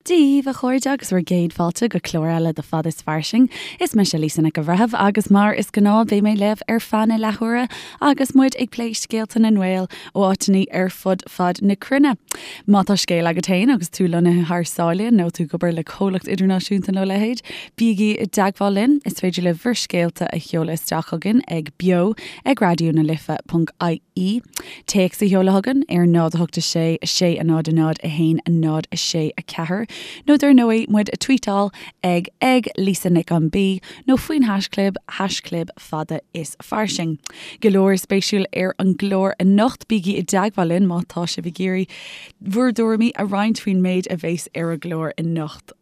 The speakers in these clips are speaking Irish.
Dia dhaoibh, a chairde, agus bhur gcéad fáilte go clár eile de Fad is Fairsing. Is mise Lisa Nic an Bhreithimh agus mar is gnáth beidh mé libh ar feadh na leathuaire agus muid ag plé scéalta na nGael ó áiteanna ar fud fad na cruinne. Má tá scéal agat féin agus tú lonnaithe thar sáile nó tú ag obair le comhlacht idirnáisiúnta nó a leithéid, bígí i dteagmháil linn. Is féidir libh bhur scéalta a sheoladh isteach chugainn ag beo ag raidió na life ponc ie. Téacs a sheoladh chugainn ar 0 8 6 6 0 0 1 0 6 4 nó dar ndóigh muid a tweetáil ag ag Lisa Nic an B nó faoin haischlib haischlib fada is fairsing. Go leor spéisiúil ar an gclár anocht, bígí i dteagmháil linn má tá sibh ag iarraidh bhur dtuairimí a roinnt faoin méid a bheas ar an gclár anocht.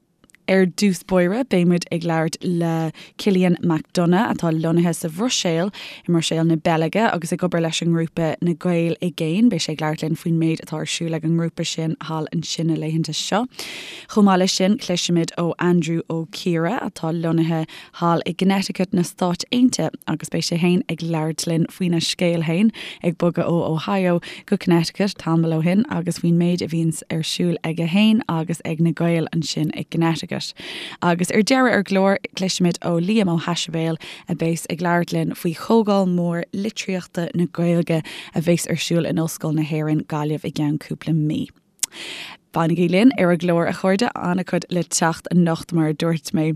Ar dtús báire, beidh muid ag labhairt le Cillian McDonagh, atá lonnaithe sa Bhruiséil, i mBruiséil na Beilge, agus ag obair leis an ngrúpa Na Gaeil i gCéin. Beidh sé ag labhairt linn faoin méid atá ar siúl ag an ngrúpa sin thall ansin na laethanta seo. Chomh maith leis sin, cloisfimid ó Andrew Ó Ciardha, atá lonnaithe thall i gConnecticut na Stáit Aontaithe agus beidh sé fhéin ag labhairt linn faoina scéal fhéin ag bogadh ó Ohio go Connecticut tamall ó shin agus faoin méid a bhíonns ar siúl aige fhéin agus ag na Gaeil ansin i gConnecticut. Agus ar deireadh ar an gclár cloisfimid ó Liam Ó hAisibéil a bheas ag labhairt linn faoi Chomhdháil Mhór Litríochta na Gaeilge a bheas ar siúl in Ollscoil na hÉireann, Gaillimh i gceann cúpla mí. Fanaigí linn ar an gclár, a chairde, an-chuid le teacht anocht, mar a dúirt mé.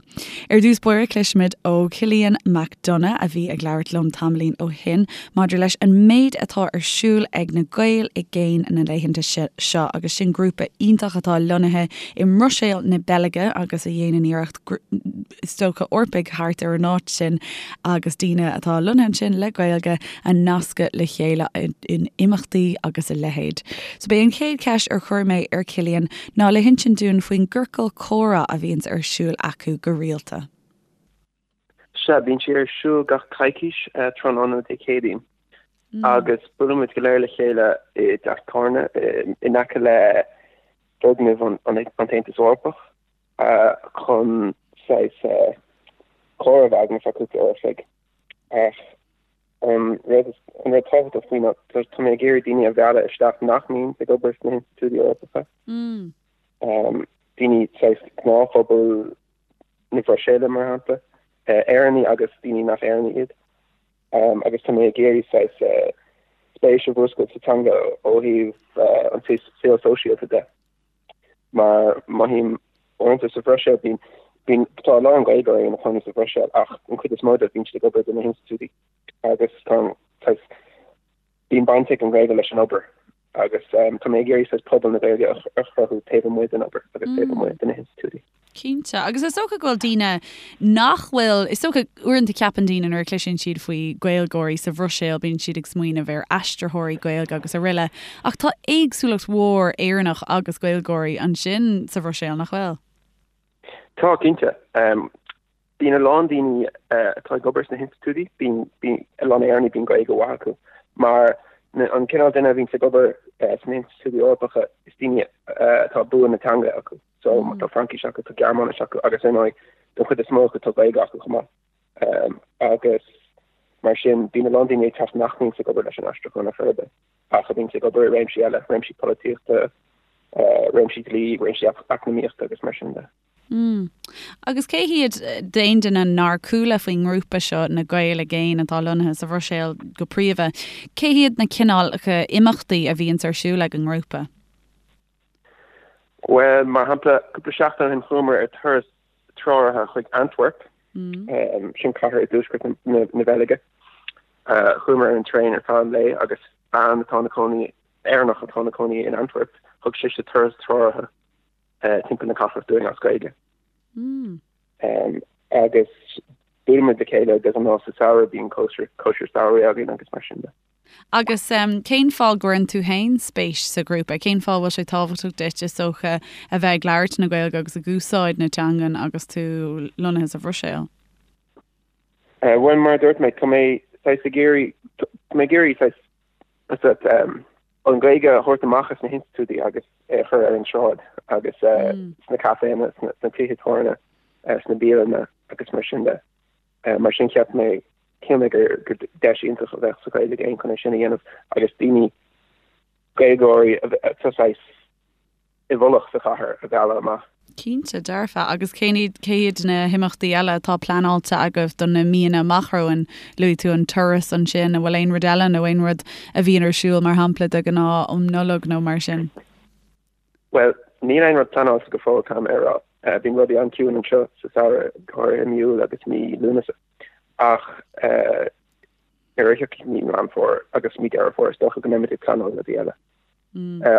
Ar dtús báire, cloisfimid ó Chillian McDonagh, a bhí ag labhairt liom tamaillín ó shin, maidir leis an méid atá ar siúl ag na Gaeil i gCéin na laethanta seo, agus sin grúpa iontach atá lonnaithe i mBruiséil na Beilge agus a dhéanann iarracht, is dócha, Eorpaigh thart ar an áit sin agus daoine atá lonnaithe ansin le Gaeilge a nascadh le chéile in imeachtaí agus a leithéid. So b'é an chéad cheist ar chuir mé ar Cillian ná le hinsint dúinn faoin gciorcal comhrá a bhíonns ar siúl acu go rialta. Sea, bíonn sé ar siúl gach coicís tráthnóna Dé Céadaoin agus buailimid go léir le chéile i dteach tábhairne in aice le foirgneamh an tAontas Eorpach. chun saghas comhrá a bheith againn ar feadh cúpla uair a chloig. Ach an rud an rud tábhachtach faoi ná tá mé ag iarraidh daoine a mhealladh isteach nach mbíonn ag obair sna hinstitiúidí Eorpacha. Daoine saghas gnáthphobal na Bruiséile mar shampla, Éireannaigh agus daoine nach Éireannaigh iad. Agus tá mé ag iarraidh saghas spéis a mhúscailt sa teanga ó thaobh an saol sóisialta de. Mar mothaím uaireanta sa Bhruiséil, bíonn, bíonn, tá a lán Gaeilgeoirí ina chónaí sa Bhruiséil ach an chuid is mó dóibh bíonn siad ag obair do na hinstitiúidí agus tá an, saghas, bíonn baint ag an Ghaeilge leis an obair agus tá mé ag iarraidh saghas pobal na Gaeilge a chruthú taobh amuigh den obair agus taobh amuigh de na hinstitiúidí. Cinnte. Agus is dócha go bhfuil daoine nach bhfuil, is dócha, uaireanta ceapann daoine nuair a chloiseann siad faoi Ghaeilgeoirí sa Bhruiséil, bíonn siad ag smaoineamh ar aistritheoirí Gaeilge agus araile. Ach tá éagsúlacht mhór Éireannach agus Gaeilgeoirí ansin sa Bhruiséil, nach bhfuil? Tá, cinnte. Bíonn a lán daoine atá ag obair sna hinstitiúidí, bíonn, bíonn a lán Éireannaigh, bíonn Gaeilge mhaith acu. Mar an cineál duine a bhíonns ag obair sna hinstitiúidí Eorpacha, is daoine atá bua na teanga acu. So tá Fraincis acu, tá Gearmáinis acu agus ar ndóigh don chuid is mó acu tá Gaeilge acu chomh maith. Agus mar sin bíonn a lán daoine ag teacht nach mbíonns ag obair leis an aistriúchán ar chor ar bith ach a bhíonns ag obair i réimsí eile, réimsí polaitíochta, réimsí dlí, réimsí eacnamaíochta agus mar sin de. Mm. Agus cé hiad, d'aon duine nár chuala faoin ngrúpa seo, na Gaeil i gCéin atá lonnaithe sa Bhruiséil go príomha, cé hiad na cineálacha imeachtaí a bhíonns ar siúl ag an ngrúpa? Bhuel, mar shampla, cúpla seachtain ó shin chuamar ar turas treoraithe chuig Antwerp, sin cathair i dtuaisceart na Beilge. Chuamar ar an traein ar feadh an lae agus bean atá ina cónaí, Éireannach atá ina cónaí in Antwerp, thug sise turas treoraithe timpeall na cathrach dúinn as Gaeilge. Agus buailimid le chéile de ghnáth sa samhradh, bíonn cóisir samhraidh againn agus mar sin de. Agus cén fáth go gcuireann tú féin spéis sa ghrúpa? Cén fáth a bhfuil sé tábhachtach duit, is dócha, a bheith ag labhairt na Gaeilge agus ag úsáid na teangan agus tú lonnaithe sa Bhruiséil? Bhuel, mar a dúirt mé, tá mé saghas ag iarraidh, tá mé ag iarraidh saghas, an Ghaeilge a thabhairt amach as na hinstitiúidí agus é a chur ar an tsráid agus sna caiféanna, sna tithe tábhairne, sna bialanna agus mar sin de. Mar sin cheap mé, shíl mé gur deis iontach a bheadh sa Ghaeil i gCéin chun é sin a dhéanamh agus daoine, Gaeilgeoirí atá saghas i bhfolach sa chathair a mhealladh amach. Cinnte, dearfa. Agus cén iad, cé hiad na himeachtaí eile atá pleanáilte agaibh do na míonna amach romhainn? Luaigh tú an turas ansin, an bhfuil aon rud eile nó aon rud a bhíonn ar siúl, mar shampla, de ghnáth um Nollaig nó mar sin? Bhuel, níl aon rud pleanáilte go fóill, caithfidh mé a rá. Bíonn rudaí an-chiúin anseo sa samhradh, go háirithe i mí Iúil agus mí Lúnasa. Ach nuair a thiocfaidh mí Meán Fómhair agus mí Deireadh Fómhair, is dócha go mbeimid ag pleanáil rudaí eile.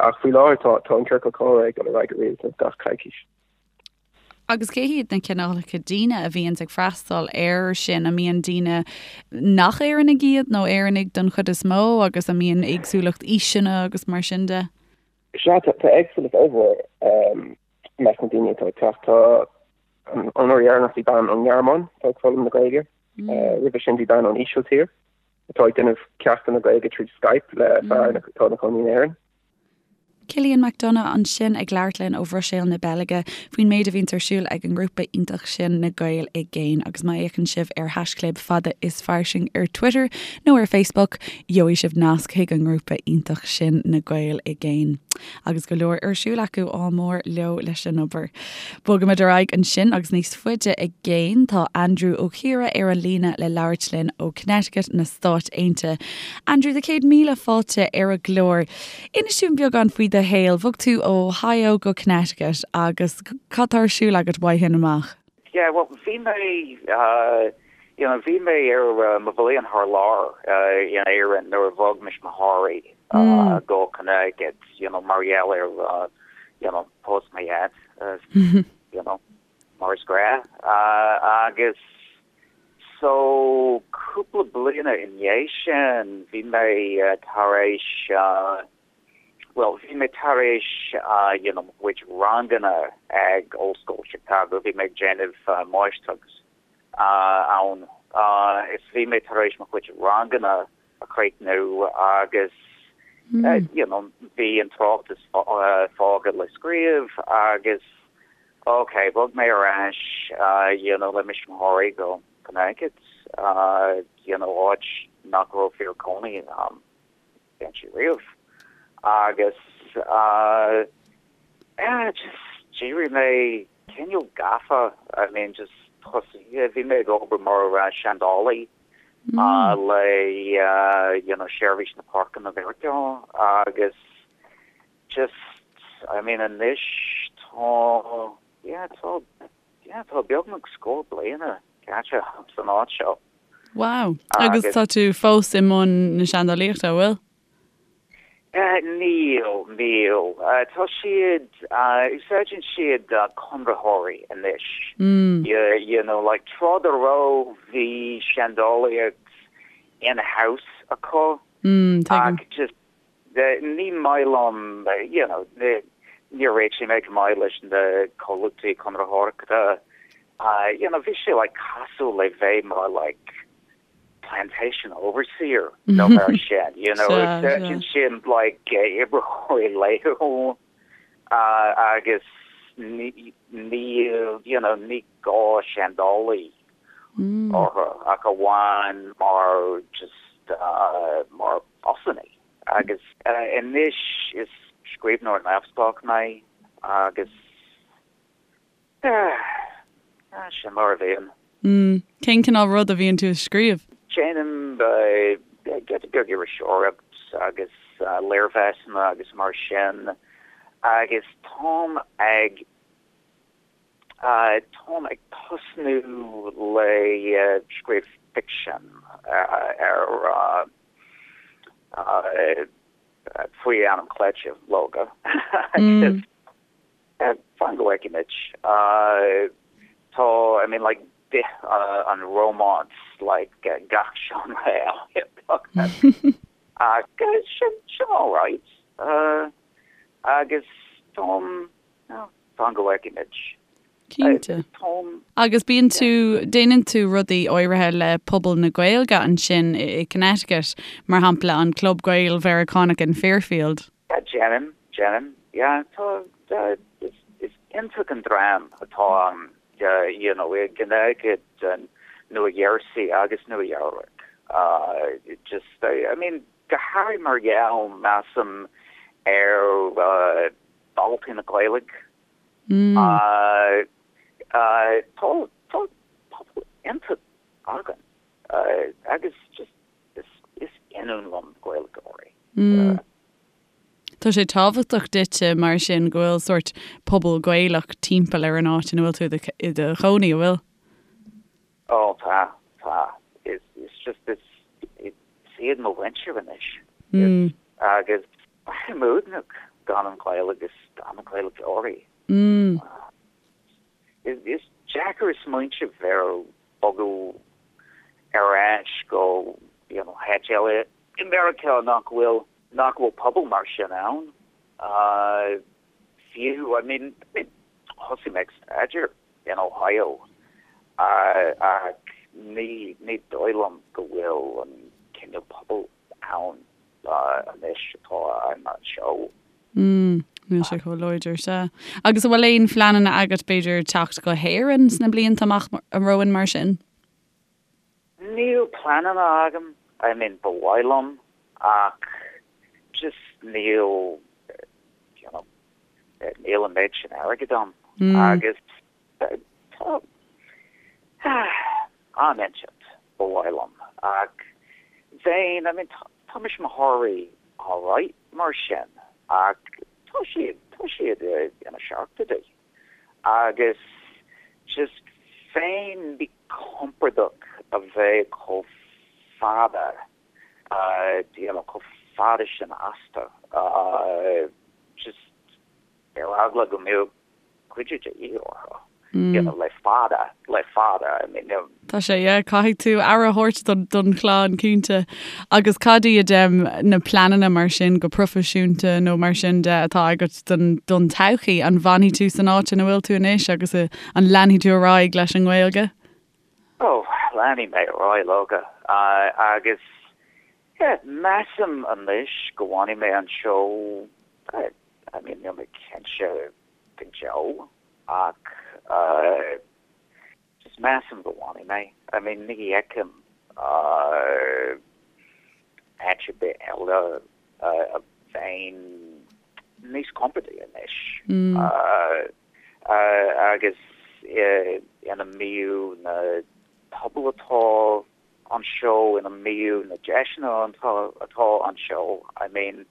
Ach faoi láthair tá tá an ciorcal comhrá ag dul ar aghaidh go rialta gach coicís. Agus cé hiad na cineálacha daoine a bhíonns ag freastal air sin? An mbíonn daoine nach Éireannaigh iad nó Éireannaigh don chuid is mó agus an mbíonn éagsúlacht aoiseanna agus mar sin de? Sea, tá éagsúlacht ollmhór i measc na daoine atá ag teacht. Tá an uair dheireanach bhí bean ón nGearmáin atá ag foghlaim na Gaeilge. Roimhe sin bhí bean ón Ísiltír. atá ag déanamh ceachtanna Gaeilge tríd Skype le fear atá ina chónaí in Éirinn. Cillian McDonagh ansin ag labhairt linn ó Bhruiséil na Beilge faoin méid a bhíonns ar siúl ag an ngrúpa iontach sin Na Gaeil i gCéin agus má fhéachann sibh ar haischlib Fada is Fairsing ar Twitter nó ar Facebook gheobhaidh sibh nasc chuig an ngrúpa iontach sin Na Gaeil i gCéin. Agus go leor ar siúl acu, ádh mór leo leis an obair. Bogaimid ar aghaidh ansin agus níos faide i gcéin tá Andrew Ó Ciardha ar an líne le labhairt linn ó Connecticut na Stáit Aontaithe. Andrew, 100,000 fáilte ar an gclár. Inis dúinn beagán faoi do shaol. Bhog tú ó Ohio go Connecticut agus cad tá ar siúl agat uaidh sin amach? Yeah, well bhí mé you know bhí mé ar mo bhliain thar lear in Éirinn nuair a bhog mo thuismitheoirí go Connecticut, you know mar gheall ar you know post mo dhaid. you know, mar is gnách. Agus so cúpla bliana i ndiaidh sin bhí mé tar éis, bhuel bhí mé tar éis you know mo chuid ranganna ag Ollscoil Chicago, bhí mé ag déanamh máistreacht ann is bhí mé tar éis mo chuid ranganna a chríochnú agus you know bhí an tráchtas fágtha le scríobh agus ok bhog mé ar ais you know le mo thuismitheoirí go Connecticut you know áit nach raibh fear cónaí inti riamh agus yeah just d'éirigh mé cineál gafa I mean just thosaigh bhí mé ag obair mar seandálaí le you know Seirbhís na Páirceanna Mheiriceá agus just I mean anois tá yeah tá yeah tá beagnach scór bliana caite san áit seo. Wow. Agus tá tú fós i mbun na seandálaíochta, an bhfuil? Níl, níl. Tá siad, úsáideann siad conraitheoirí anois. You know, like tráth dá raibh bhí seandálaíocht in-house acu ach just ní maith liom, you know, níor réitigh mé go maith leis na comhlachtaí conraitheoireachta. You know, bhí sé like cosúil le bheith mar like plantation overseer nó mar sin, you know, úsáideann siad like oibritheoirí laethúil agus níl, you know, ní gá seandálaí orthu ach amháin mar just mar bossannaí. Agus anois is scríbhneoir neamhspleách mé agus Sin mar a bhíonn. Mm. Cén cineál rud a bhíonn tú ag scríobh? Déanaim giota beag iriseoireacht agus léirmheasanna agus mar sin agus táim ag táim ag tosnú le scríobh ficsean ar faoi ainm cleite, leoga agus Fan go bhfeicfimid. Tá, I mean like bith an rómáns like gach seánra eile beagnach. Ach sin, sin alright. Agus táim, fan go bhfeicfimid. Cinnte. Táim. Agus bíonn tú, déanann tú rudaí áirithe le pobal na Gaeilge ansin i Connecticut, mar shampla an Club Gael-Mheiriceánach in Fairfield. Yeah, déanaim, déanaim, yeah, tá, is, is iontach an dream atá ann, you know, i gConnecticut, Nua Gheirsí agus Nua Eabhrac. Just, I mean, go háirithe mar gheall, measaim, ar. Daltaí na Gaeilge. Tá tá pobal iontach againn agus just is is ionann liom Gaeilgeoirí. Tá sé tábhachtach duitse mar sin go bhfuil sórt pobal Gaelach timpeall ar an áit ina bhfuil tú i do chónaí, an bhfuil? Ó tá, tá. Is is just is is iad mo mhuintir anois. Is agus braithim uaigneach gan an Ghaeilge agus gan na Gaeilgeoirí. Is is deacair smaointeamh ar bogadh ar ais go you know háit eile i Meiriceá nach bhfuil nach bhfuil pobal mar sin ann. Fiú I mean I mean thosaigh mé ag staidéar in Ohio ach ní ní dóigh liom go bhfuil an cineál pobail ann anois atá ann anseo. Mm, níl sé chomh láidir, sea. Agus an bhfuil aon phleananna agat b'fhéidir teacht go hÉirinn sna blianta amach romhainn mar sin? Níl pleananna agam, I mean ba mhaith liom ach just níl, you know, níl an méid sin airgid agam agus tá am inteacht ba mhaith liom ach bheinn, I mean tá tuismitheoirí alright mar sin ach tá siad, tá siad ina seachtóidí agus just bheinn míchompordach a bheith chomh fada, you know, chomh fada sin astu, just ar eagla go mbeadh cuidiú de dhíth orthu, you know, le fada, le fada, I mean, you know. Tá sé, yeah, caithfidh tú aire a thabhairt don, don chlann, cinnte. Agus cad iad na pleananna mar sin, go proifisiúnta nó mar sin de, atá agat don, don todhchaí? An bhfanfaidh tú san áit ina bhfuil tú anois agus an leanfaidh tú ar aghaidh leis an nGaeilge? Oh, leanfaidh mé ar aghaidh leoga. Agus, yeah, measaim anois go bhfanfaidh mé anseo, I mean, níl mé cinnte go deo ach just measaim go bhfanfaidh mé. I mean, ní fheicim áit ar bith eile a bheinn níos compordaí anois agus ina mbíodh na pobail atá anseo, ina mbíodh na deiseanna atá anseo. I mean,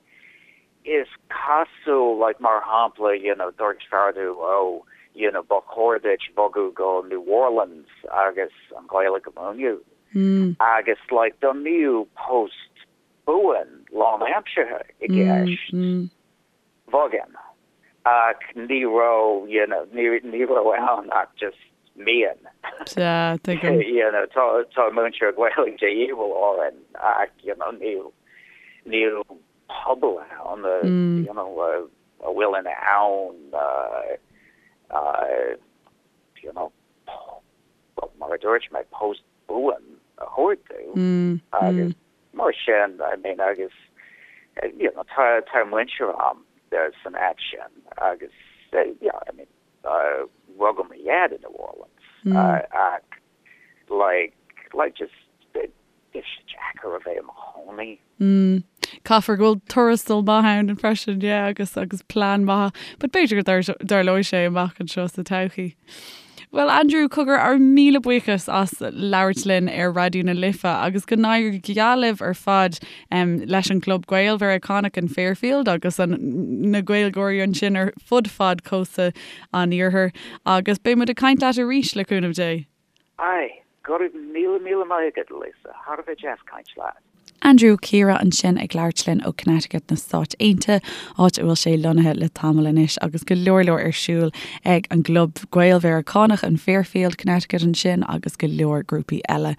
Is cosúil, like, mar shampla, you know, dúirt fear domh, oh, you know, ba chóir duit bogadh go New Orleans agus an Ghaeilge a mhúineadh. Agus, like, dá mbíodh post buan lánaimseartha i gceist, bhogfainn. Ach ní raibh, you know, ní, ní raibh ann ach just mian. Sea, tuigim. You know, tá, tá múinteoir Gaeilge de dhíobháil orainn ach, you know, níl, níl pobal ann you know a bhfuil in ann you know mar a dúirt mé post buan a thabhairt domh agus mar sin I mean agus you know tá tá muintir a'm san áit sin agus yeah I mean rugadh mo dhaid in New Orleans ach like like just bheadh sé deacair a bheith i mo chónaí. Mm. Caithfear go bhfuil tuarastal maith ann freisin, yeah, agus agus plean maith. But b'fhéidir go dtarlóidh sé amach anseo sa todhchaí. Bhuel, Andrew, cogar ár míle buíochas as labhairt linn ar Raidió na Life agus go n-éirí go geal libh ar fad um, leis an gClub Gael-Mheiriceánach in Fairfield agus an, na Gaeilgeoirí ansin ar fud fad cósta an Iarthair agus beidh muid ag caint leat arís le cúnamh Dé. Aye, go raibh míle míle maith agat, Lisa, thar a bheith deas caint leat. Andrew Ó Ciardha ansin ag labhairt linn ó Connecticut na Stáit Aontaithe, áit a bhfuil sé lonnaithe le tamall anois agus go leor leor ar siúl ag an gClub Gael-Mheiriceánach in Fairfield, Connecticut ansin agus go leor grúpaí eile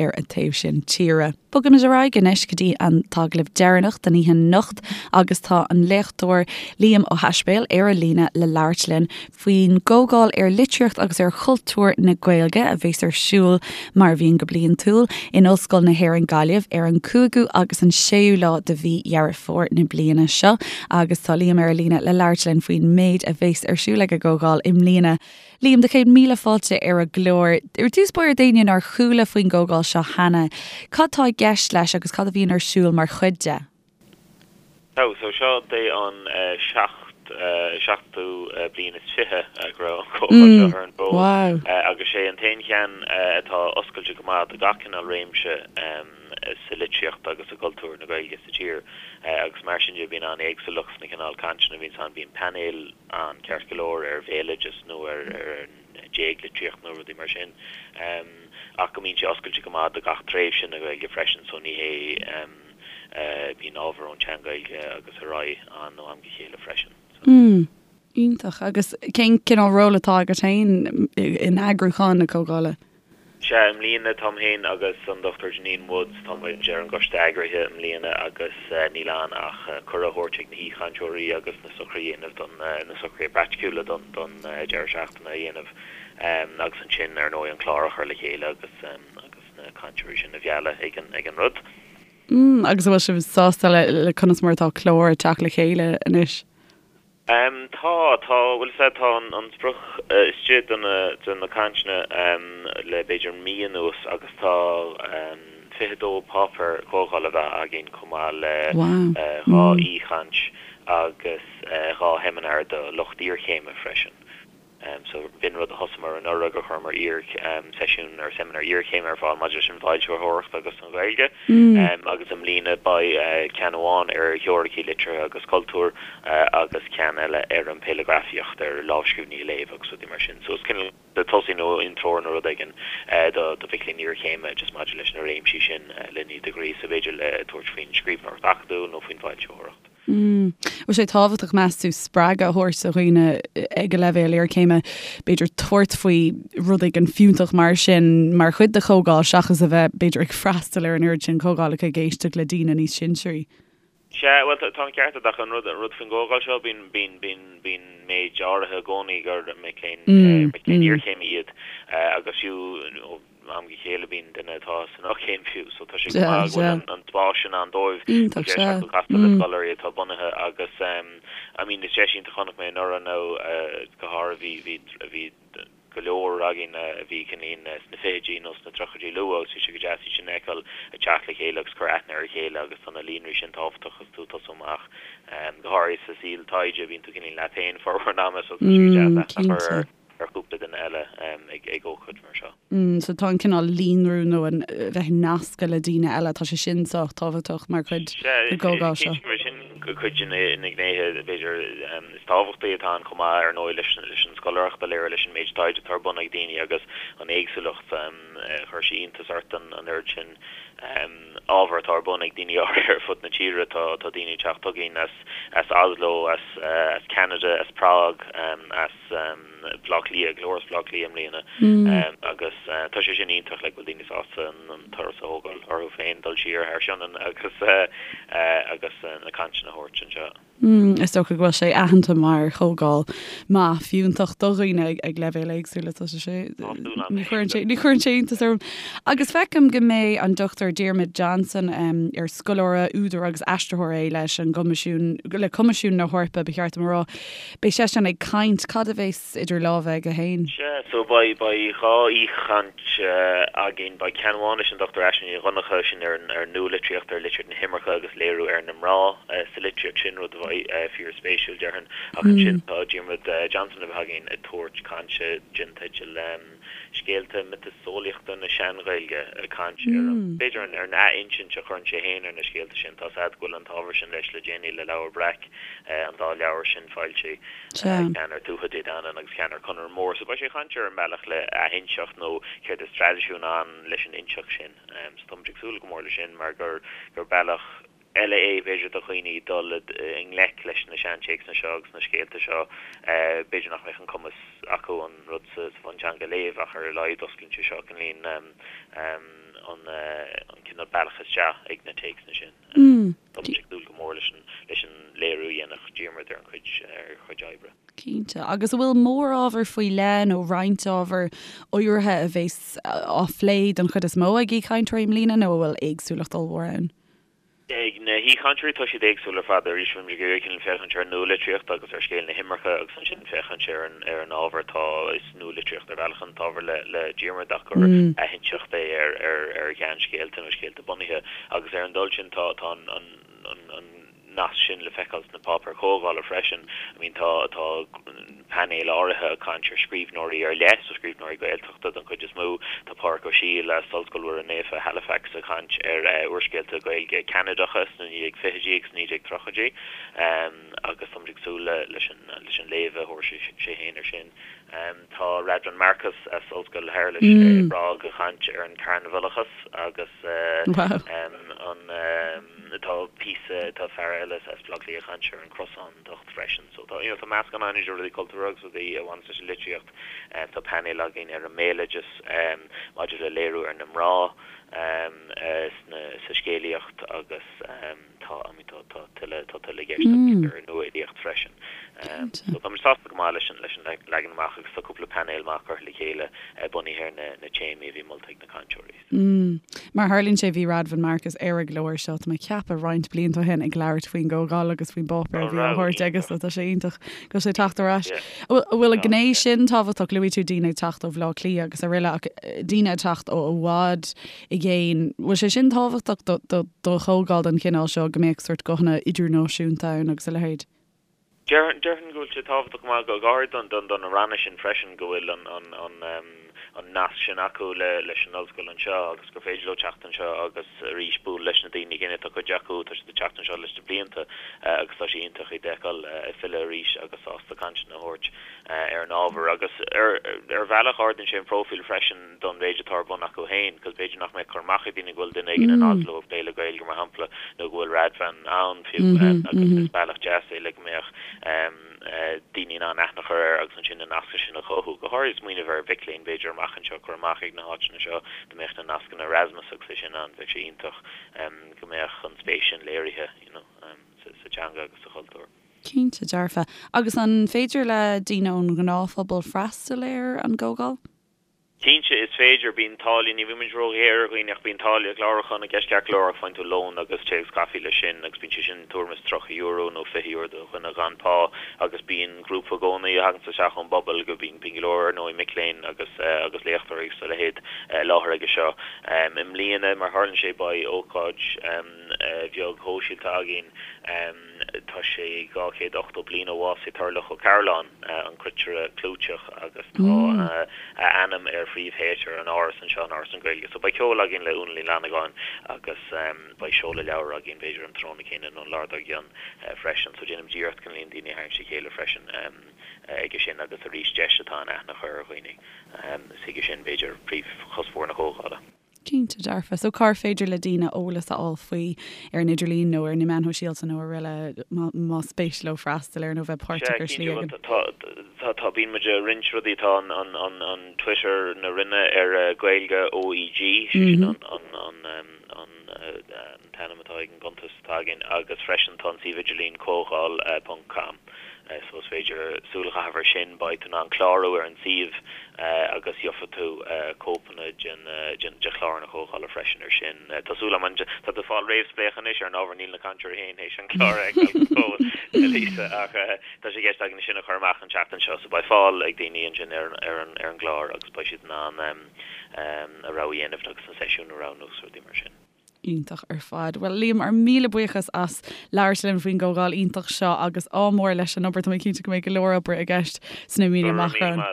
ar an taobh sin tíre. Bogaimid ar aghaidh anois go dtí an t-agallamh deireanach den oíche anocht agus tá an léachtóir Liam Ó hAispéil ar an líne le labhairt linn faoin gComhdháil ar Litríocht agus ar Chultúr na Gaeilge a bheas ar siúl, mar a bhíonn go bliantúil, in Ollscoil na hÉireann Gaillimh ar an 5ú agus an 6ú lá de mhí Dheireadh Fómhair na bliana seo agus tá Liam ar an líne le labhairt linn faoin méid a bheas ar siúl ag an gComhdháil i mbliana. Liam, do chéad míle fáilte ar an gclár. Ar dtús báire d'éinne nár chuala faoin gcomhdháil seo cheana, cad tá i gceist leis agus cad a bhíonn ar siúl mar chuid de? So, so seo é an seachtú. seachtú bliain is 20 go raibh an chomhdháil seo ar an bhfód agus sé an t-aon cheann atá oscailte go maith do gach cineál réimse sa litríocht agus i gcultúr na Gaeilge sa tír agus mar sin de bíonn an-éagsúlacht sna cineál cainteanna a bhíonns ann. Bíonn painéil ann ceart go leor ar bhéaloideas nó ar an déaglitríocht nó rudaí mar sin ach go mbíonn sé oscailte go maith do gach tréimhse na Gaeilge freisin so ní hé Bíonn ábhar ón tSean-Ghaeilge agus ar aghaidh ann ó am go chéile freisin. Mm. Iontach. Agus cén cineál ról atá agat féin in eagrúchán na comhdhála? Sea, i mbliana táim féin agus an Dr Janine Woods, tá muid ar an gcoiste eagraithe i mbliana agus níl ann ach cuireadh a thabhairt ag na haoichainteoirí agus na socruithe a dhéanamh don, na socruithe praiticiúla don, don deireadh seachtaine a dhéanamh agus ansin ar ndóigh an clár a chur le chéile agus, agus na cainteoirí sin a mhealladh ag an, ag an rud. Mm, agus an bhfuil sibh sásta le, le conas mar atá clár ag teacht le chéile anois? Em, tá, tá, bhuel is ea, tá an, an sprioc istigh do na, do na cainteanna, em, le b'fhéidir mí anuas agus tá, em, 22 páipéar comhdhála a bheith againn chomh maith le, Wow. eh, 2 aoichaint agus, eh, 2 sheimineár do lucht iarchéime freisin. So b'in rud a thosaíomar anuraidh gur chuireamar iar seisiún ar seimineár iarchéime ar fáil maidir leis an bhfoilsitheoireacht agus an Ghaeilge. Agus i mbliana beidh ceann amháin ar theoiricí liteartha agus cultúir agus ceann eile ar an phéileagrafaíocht, ar lámhscríbhinní a léamh agus rudaí mar sin. So is cineál de tosaí nó intreoir nó rud éigin do do mhic léinn iarchéime just maidir leis na réimsí sin len iad a ghríosadh b'fhéidir le tabhairt faoin scríbhneoireacht acadúil nó faoin bhfoilsitheoireacht. An bhfuil sé tábhachtach, meas tú, spreagadh a thabhairt do dhaoine ag an leibhéal iarchéime, b'fhéidir tabhairt faoi rud éigin fiúntach mar sin mar chuid de chomhdháil seachas a bheith, b'fhéidir, ag freastal ar an oiread sin comhdhálacha ag éisteacht le daoine níos sinsearaí? Sea, bhuel, tá an ceart agat ach an rud, an rud faoin gcomhdháil seo, bíonn, bíonn, bíonn, bíonn méid áirithe i gcónaí gur mic léinn, mic léinn iarchéime iad agus fiú, am go chéile bíonn duine atá san fhochéim fiú so tá sé go maith go bhfuil an spás sin ann dóibh Iontach, deis sea. acu castáil le scoláirí atá bunaithe agus I mean is deis iontach chonaic mé anuraidh nó go háirithe bhí bhí bhí go leor againn a bhí cineál sna fichidí nó sna tríochaidí luath agus bhí sé go deas iad sin a fheiceáil ag teacht le chéile agus cur aithne ar a chéile agus tá na líonraí sin tábhachtach agus tú ag tosú amach go háirithe sa saol taighde bíonn tú cineál leat féin formhór an ama so tá sé go deas aithne a chur ar ar chúpla duine eile ag ócáid mar seo. So tá an cineál líonrú nó an bheith nasctha le daoine eile, tá sé sin sách tábhachtach mar chuid den gcomhdháil seo. Sea, cinnte sin cuid de na gnéithe b'fhéidir is tábhachtaí atá ann chomh maith ar ndóigh leis an scoláireacht a léiriú, leis an méid taighde atá ar bun ag daoine agus an éagsúlacht. Chuir sé iontas ort an oiread sin ábhar atá ar bun ag daoine áirithe ar fud na tíre. Tá daoine ag teacht chugainn as Oslo, as Ceanada, as Prág, as. Baile Átha Cliath, go leor as Baile Átha Cliath i mbliana agus tá sé sin iontach like go bhfuil daoine sásta an turas a thógáil orthu féin dul siar thar Sionainn agus agus na cainteanna a thabhairt anseo. Is dócha go bhfuil sé aitheanta mar chomhdháil maith fiúntach do dhaoine ag leibhéil éagsúla tá sé ní chuireann sé ní chuireann sé iontas orm. Agus feicim go mbeidh an Dr Diarmuid Johnson ar scoláire, údar agus aistritheoir é leis an gCoimisiún le Coimisiún na hEorpa ba cheart dom a rá. Beidh seisean ag caint. Cad a bheas idir lámha aige féin? Sea, so beidh, beidh 2 aoichaint againn. Beidh ceann amháin leis an Dr Aisling Ní Dhonncha, sin ar an, ar an nualitríocht, ar litríocht na himirce agus léiriú ar na mná sa litríocht sin, rud a bheidh fíor-spéisiúil, déarfainn. Ach ansin tá Diarmuid Johnson le bheith againn ag tabhairt cainte den teideal Scéalta Miotaseolaíochta na Sean-Ghaeilge, ag caint ar an, b'fhéidir, ar an ath-insint a chuireann sé féin ar na scéalta sin. Tá's a'd go bhfuil an t-ábhar sin leis le déanaí le Leabhar Breac. an dá leabhar sin foilsithe, ceann ar Tuatha Dé Danann agus ceann ar Conaire Mór. So beidh sé ag caint ar an mbealach le athinseacht nó céard is traidisiún ann leis an inseacht sin. So táimid ag súil go mór leis sin mar gur gur bealach eile é b'fhéidir do dhaoine dul i ngleic leis na seantéacsanna seo agus na scéalta seo. B'fhéidir nach mbeadh an cumas acu an rud sa bhunteanga a léamh ach ar a laghad osclaíonn sé seo cineál an cineál bealach isteach ag na téacsanna sin. Tá muid ag dúil go mór leis an leis an léiriú a dhéanfadh Diarmuid ar an chuid ar a chuid oibre. Cinnte. Agus an bhfuil mórábhar faoi leith nó roinnt ábhar áirithe a bheas á phlé den chuid is mó ag aoichainteoirí i mbliana nó an bhfuil éagsúlacht ollmhór ann? Ag na haoichainteoirí tá siad éagsúil ar fad. Arís bhí muid ag iarraidh cineál féachaint ar an nualitríocht agus ar scéal na himirce agus ansin féachaint ar an ar an ábhar atá is nualitríocht ar bhealach an t-ábhar le le Diarmuid ach gur athinseacht é ar ar ar sheanscéalta nó scéalta bunaithe. Agus ar an dul sin tá tá an an an. nasc sin le feiceáil sna páipéir chomhdhála freisin. I mean tá tá painéil áirithe ag caint ar scríbhneoirí ar leith, so scríbhneoirí Gaeltachta don chuid is mó. Tá Pádraic Ó Siadhail as Ollscoil Mhuire Naofa, Halifax ag caint ar úrscéalta Gaeilge Ceanadacha sna 1920idí agus 1930idí agus táimid ag súil leis an léamh a thabharfaidh sé féin air sin. Tá Radvan Markus as Ollscoil Shéarlais i bPrág ag caint ar an carnabhalachas agus an tá píosa tá fear eile as Baile Átha Cliath ag caint ar an gcrosántacht freisin. So tá you know tá meascán ann idir rudaí cultúrtha agus rudaí a bhaineas leis an litríocht. Tá painéal againn ar an mbéaloideas maidir le léiriú ar na mná sna sa scéalaíocht agus tá I mean tá tá tuilleadh tá tuilleadh i gceist agus ar an nua-fhilíocht freisin. So táimid sásta go maith leis an leis an leagan amach agus tá cúpla painéal maith curtha le chéile bunaithe ar na na téamaí a bhí molta ag na cainteoirí. Mm. Mar a tharlaíonn sé bhí Radvan Markus ar an gclár seo tá mé ag ceapadh roinnt blianta ó shin ag labhairt faoin gcomhdháil agus faoin bpáipéar a bhí á thabhairt aige so tá sé iontach go bhfuil sé ag teacht ar ais. An bhfuil an ghné sin tábhachtach? Luaigh tú daoine ag teacht ó Bhaile Átha Cliath agus araile ach daoine ag teacht ó i bhfad i gcéin. Bhfuil sé sin tábhachtach do chomhdháil den chineál seo, go mbeadh sórt guthanna idirnáisiúnta ann agus a leithéid? Déarfainn go bhfuil sé tábhachtach go maith, go háirid do na ranna sin freisin, go bhfuil an nasc sin acu leis an ollscoil anseo agus gur féidir leo teacht anseo agus arís bualadh leis na daoine céanna. Tá cuid acu, tá siad ag teacht anseo leis na blianta agus tá sé iontach iad a fheiceáil ag filleadh arís agus sásta cainteanna a thabhairt ar an ábhar. Agus ar bhealach ardaíonn sé an próifíl freisin. don mhéid atá ar bun acu féin, cos b'fhéidir nach mbeadh cur amach ag daoine go bhfuil duine éigin in Oslo ag plé le Gaeilge, mar shampla, nó go bhfuil Radvan ann fiú, agus is bealach deas é le go mbeadh daoine in ann aithne a chur air agus ansin na nascanna sin a chothú. Go háirithe smaoineamh ar mhic léinn, b'fhéidir, amach anseo, cur amach ag na háiteanna seo, dá mbeadh na nascanna Erasmus agus é sin ann, bheadh sé iontach go mbeadh an spéis sin léirithe, you know, sa teanga agus sa chultúr. Cinnte dearfa. Agus an féidir le daoine ón ngnáthphobal freastal ar an gcomhdháil? Cinnte, is féidir. Bíonn táille, ní bhíonn muid róghéar ar dhaoine ach bíonn táille clárúcháin i gceist ceart go leor ach faigheann tú lón agus tae agus caife leis sin agus bíonn sé sin tuairim is €30 nó €20 do dhuine gan pá agus bíonn grúpa i gcónaí a thaganns isteach ón bpobal go bíonn bíonn go leor ar ndóigh mic léinn agus agus léachtóirí agus a leithéid i láthair aige seo. I mbliana mar tharlaíonn sé beidh ócáid bheag shóisialta againn. Tá sé 280 bliain ó bhásaigh Toirdhealbhach Ó Cairealláin, an cruitire clúiteach, agus tá a ainm ar phríomhthéatar an Áras anseo in Áras na Gaeilge. So beidh ceol againn le Úna Ní Fhlannagáin agus beidh seoladh leabhar againn b'fhéidir an tráthnóna céanna nó an lá dár gcionn freisin. So déanaimid iarracht chun líon daoine a tharraingt le chéile freisin aige sin agus arís deis atá ann aithne a chur ar dhaoine. Is chuige sin b'fhéidir príomhchuspóir na comhdhála. Cinnte dearfa. So cár féidir le daoine eolas a fháil faoi ar an idirlíon nó ar na meáin shóisialta nó araile más spéis leo freastal air nó bheith páirteach ar shlí éigin? Tá, tá, tá, bíonn muid ag roinnt rudaí, tá an, an, an, an Twitter na Roinne ar Gaeilge OEG, sé sin an, an, an, an, an t-ainm atá ag an gcuntas atá againn agus freisin tá an suíomh idirlín comhdháil ponc com. So is féidir súil a chaitheamh air sin, beidh tú in ann clárú ar an suíomh agus gheofaidh tú cóipeanna de chlár na comhdhála freisin air sin. Tá súil agam, tá tú ag fáil réamhspléachadh anois ar an ábhar, níl na cainteoirí féin théis an clár a fheiceáil go fóill, a Lisa, ach tá sé i gceist againn sin a chur amach an tseachtain seo so beidh fáil ag daoine ansin ar an gclár agus beidh siad in ann a rogha a dhéanamh agus na seisiúin a roghnú agus rudaí mar sin. Iontach ar fad. Bhuel, Liam, ár míle buíochas as labhairt linn faoin gcomhdháil iontach seo agus ádh mór leis an obair. Tá mé cinnte go mbeidh go leor oibre i gceist sna míonna amach romhainn.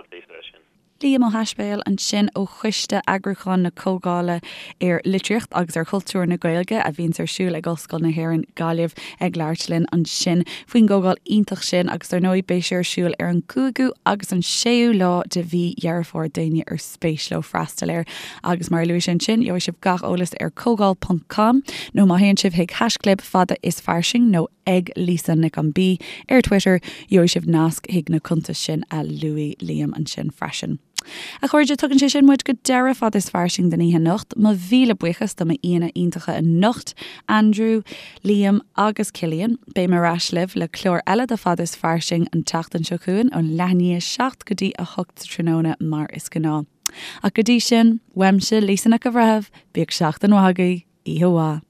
Liam Ó hAispéil ansin ó Choiste Eagrúcháin na Comhdhála ar Litríocht agus ar Chultúr na Gaeilge a bhíonns ar siúl ag Ollscoil na hÉireann, Gaillimh, ag labhairt linn ansin faoin gcomhdháil iontach sin agus dar ndóigh beidh sé ar siúl ar an gcúigiú agus an séú lá de mhí Dheireadh Fómhair d'éinne ar spéis leo freastal air. Agus mar a luaigh sé ansin, gheobhaidh sibh gach eolas ar comhdháil ponc com nó má théann sibh chuig haischlib fada is fairsing nó ag Lisa Nic an B ar Twitter, gheobhaidh sibh nasc chuig na cuntais sin a luaigh Liam ansin freisin. A chairde, tugann sé sin muid go deireadh Fada is Fairsing don oíche anocht. Mo mhíle buíochas do m'aíonna iontacha anocht, Andrew, Liam agus Cillian. Beidh mé ar ais libh le clár eile de Fada is Fairsing an tseachtain seo chugainn ón leath i ndiaidh 7 go dtí 8 sa tráthnóna mar is gnáth. Ach go dtí sin, uaimse, Lisa Nic an Bhreithimh, bíodh seachtain mhaith agaibh, oíche mhaith.